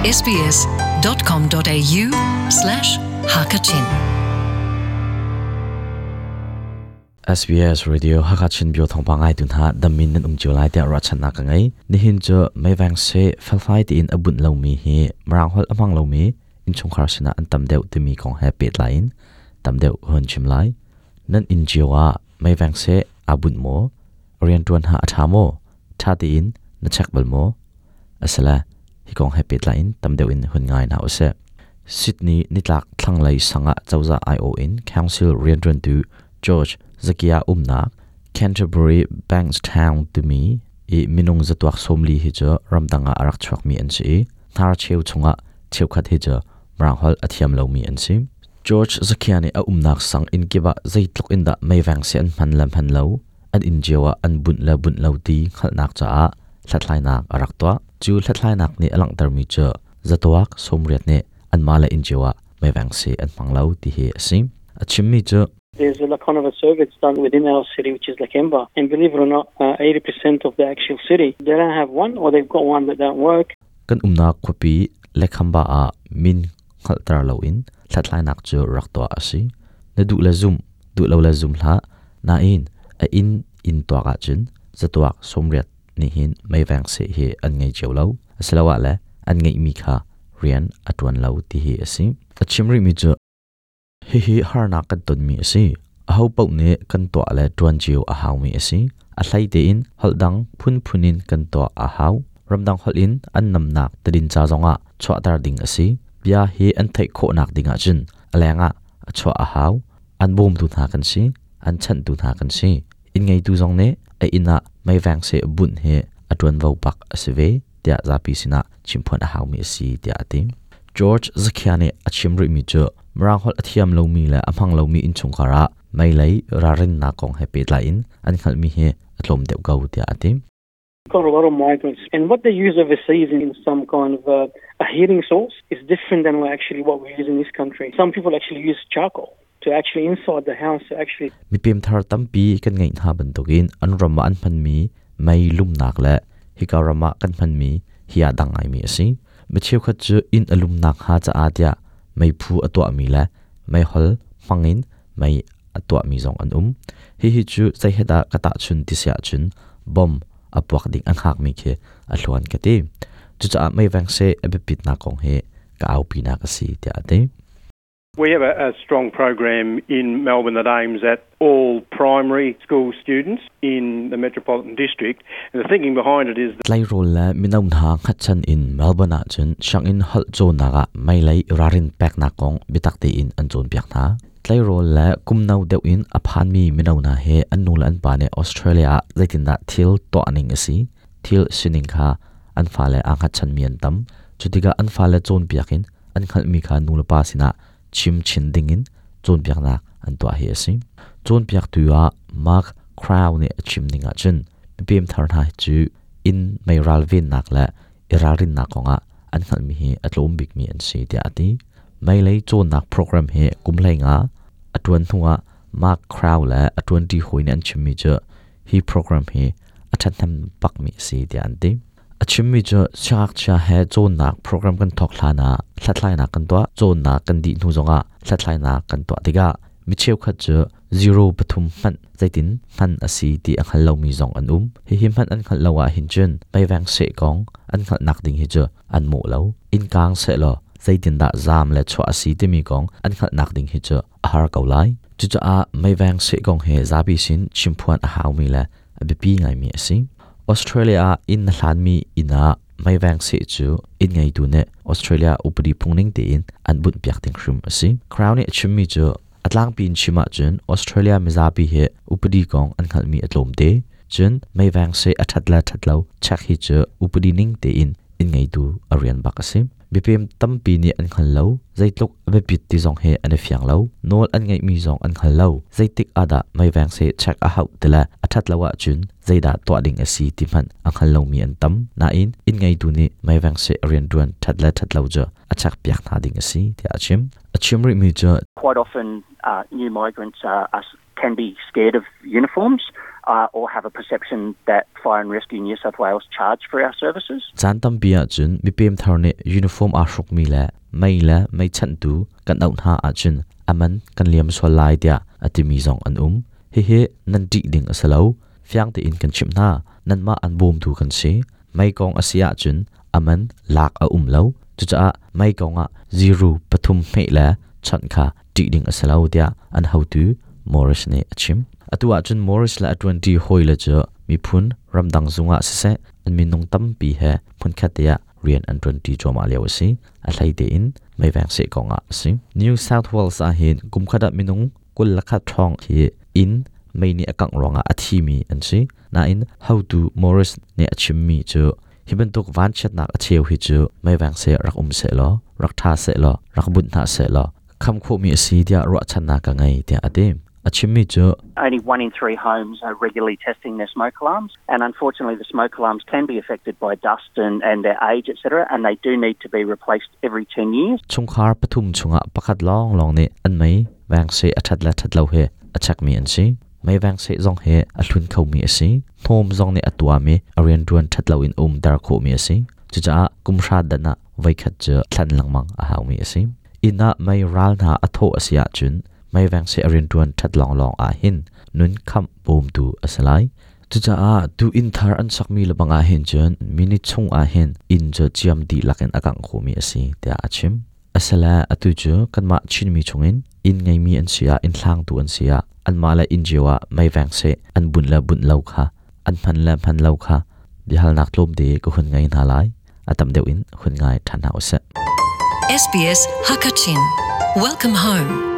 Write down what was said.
sbs.com.au slash hakachin SBS Radio Hakachin bio thongpa ngai tun ha damin nan um chiu lai tia ra channa ka ngai nihin chu meivang se felfai ti in abun lo mi hi marang hol amang lo mi in chungkhar sina an tam deuh timi kong he pet lain tam deuh hon chim lai nan in chiwa meivang se abun mo rian tuan ha atha mo tha ti in na check bal mo asala hi kong he pet lain tam deuh in hun ngai na ose Sydney nitlak thlanglei sanga chawza IO in council rian tuan tu George Zakia umnak Canterbury Bankstown timi i minung zatuak somli hi chu ramdanga arak chuak mi an si thar cheu chunga cheukhat hi chu mranghol athiam lo mi an si George Zakia ni a umnak sang in kiba zeitluk in da meiwang se an hman lam han lo an in jewa an bun la bun lo ti khalnak cha a hlathlai nak arak to chu hlathlai nak ni alang tar mi chu zatuak somriat ne an mala in jewa meiwang se an hmang lo ti hi asim achim mi chu There's a kind of a survey that's done within our city, which is Lakemba. And believe it or not, 80% of the actual city, they don't have one or they've got one that don't work. Kan umnak khuapi Lekhamba ah min hngalhter loin hlathlainak cu rak tuah a si. Na duh le zum, duh lo le zum hlah. Nain a inn in tuak ahcun zatuak 80 nih hin meiveng seh hi an ngei cio lo. Asiloah le an ngeihmi kha rian a ṭuan lo ti hi a si. A chim rihmi cu hihi harnak kan tonmi a si. Aho paoh nih kan tuah le ṭuan cio a haumi a si. A hlei tein holh dang phunphun in kan tuah a hau. Ramdang holh in an namnak tadinca zongah chuahter ding a si. Bia hi an theih khawhnak ding ahcun a lengah a chuah a hau. An bawmtu hna kan si. An chanhtu hna kan si. Inn ngeitu zong nih a inn ah meiveng seh bunh hi a ṭuanvo bak a si ve tiah zapi sinah chimphuan a haumi a si tiah a ti. George Zakhia nih a chim rihmi cu Mirang holh a thiam lomi le a hmang lomi innchungkhar ah meilei ralrinnak kong he pehtlai in an hngalhmi hi a tlawm deuh ko tiah a ti. Got a lot of migrants, and what they use overseas in some kind of a heating source is different than actually what we use in this country. Some people actually use charcoal to actually inside the house to actually Mipem thar tampi kan ngeih hna bantukin an ram ah an hmanmi mei lumnak le hika ram ah kan hmanmi hi aa dang ngaimi a si. Mi cheukhat cu inn a lumnak hnga caah tiah meiphu a tuahmi le meihol hmangin mei a tuahmi zong an um. Hihi cu zei he dah ka tahchun ti si ahcun bom a puak ding an hngakmi khi a hluan ka ti. Cucaah meiveng seh a biapitnak kong hi ka aupinak a si tiah a ti. We have a strong program in Melbourne that aims at all primary school students in the metropolitan district. And the thinking behind it is Tleirawl le mino hna hngatchan in Melbourne ah cun sianginn holh cawnnak ah meilei ralrin peknak kong biatak tein an cawnpiak hna. Tleirawl le kum no deuh in a phanmi mino hna hi an nu le an pa nih Australia ah zeitindah thil tuah ning a si, thil sining kha an fale aa hngatchanmi an tam. Cutikah an fale cawnpiak in an hngalhmi kha nulepa sinah chim chin dingin cawnpiaknak an tuah hi a si. Cawnpiaktu ah Mark Crow nih a chim ning ahcun mipem thar hna cu inn meiral vennak le i ralrinnak kongah an hngalhmi hi a tlawm bikmi an si tiah a ti. Meilei cawnnak program hi kum 15 a ṭuan hnuah Mark Crow le a ṭuanṭi hawi nih an chimmi cu hi program hi a ṭhathnem bakmi a si tiah an ti. A chimmi cu siangngakchia he cawnnak program kan thawk hlan ah hlathlainak kan tuah. Cawnnak kan dih hnu zongah hlathlainak kan tuah tikah mi cheukhat cu zero pathum hmanh zeitin hman a si ti a hngal lomi zong an um. Hihi hmanh an hngalh lo ahhin cun meiveng seh kong an hngalhnak ding hi cu an mawh lo. Inn kaang sehlaw zeitindah zaam le chuah a si timi kong an hngalhnak ding hi cu a har ko lai. Cucaah meiveng seh kong hi zapi sin chimphuan a haumi le a biapi ngaimi a si. Australia ah inn na hlanmi inn ah meiveng seh cu inn ngeitu nih Australia upadi phungning tein an bunhpiak ding hrim a si. Crown nih a chimmi cu a tlangpi in chim ahcun Australia mizapi hi upadi kong an hngalhmi a tlawm te. Cun meiveng seh a ṭhat le ṭhat lo check hi cu upadi ning tein inn ngeitu a rian bak a si. Mipem tampi nih an hngal lo. Zeitluk a biapit ti zong hi an i fiang lo. Nawl an ngeihmi zong an hngal lo. Zeitik ah dah meiveng seh check a hauh ti le a ṭhat lo ahcun zeidah tuah ding a si ti hmanh a hngal lomi an tam. Nain inn ngeitu nih meiveng seh rianṭuan ṭhat le ṭhat lo cu a check piak hna ding a si tiah a chim. A chim rihmi cu Quite often new migrants can be scared of uniforms. or have a perception that Fire and Rescue New South Wales charge for our services. Caan tampi ahcun mipem thar nih uniform aa hrukmi le mei le meichanhtu kan auh hna ahcun a man kan liam sual lai tiah a timi zong an um. Hihi nan ṭih ding a si lo. Fiang tein kan chimh hna. Nanmah an bawmtu kan si. Mei kong a si ahcun a man lak a um lo. Cucaah mei kong ah ziru pathum hmeh le chawnh kha ṭih ding a si lo tiah an hotu Morris nih a chim. Atu ahcun Morris le a ṭuanṭi hawile cu miphun ramdang zung ah siseh an minung tampi he hmunkhat te ah rian an ṭuanṭi cuahmah lio a si. A hlei tein meiveng seh kong ah a si. New South Wales ah hin kumkhat ah minung 21 ṭhawng hi inn mei nih a kangh ruangah a thimi an si. Nain hotu Morris nih a chimmi cu hi bantuk vanchiatnak a cheu hi cu meiveng seh rak um sehlaw, rak ṭha sehlaw, rak bunh hna sehlaw kham khawhmi a si tiah ruahchannak ka ngei tiah a ti. A chimmi cu Only one in three homes are regularly testing their smoke alarms, and unfortunately, the smoke alarms can be affected by dust and their age, etc., and they do need to be replaced every 10 years. Chungkhar pathum chungah pakhat lawnglawng nih an mei veng seh a ṭhat le ṭhat lo hi a chekmi an si. Mei veng seh zong hi a hlun khomi a si. Hnawm zong nih a tuahmi a rianṭuan ṭhat lo in umter khawhmi a si. Cucaah kum hra dan ah voikhat cu thlen lengmang a haumi a si. Inn ah mei ral hna a thawh a si ahcun mei veng seh a rianṭuan ṭhat lawnglawng ah hin nun khamh bawmtu a si lai. Cucaah tu inn thar an sakmi lebang ah hin cun minute chung ah hin inn cu ciam dihlak in a kangh khawhmi a si tiah a chim. Asile atu cu kanmah Chinmi chungin inn ngeimi an si ah inn hlangtu an si ah anmah le inn cio ah mei veng seh an bunh le bunh lo kha an hman le hman lo kha biahalnak tlawmte ka hun ngei hna lai. A tam deuh in hun ngai ṭhan hna usih. SBS Hakachin. Welcome home.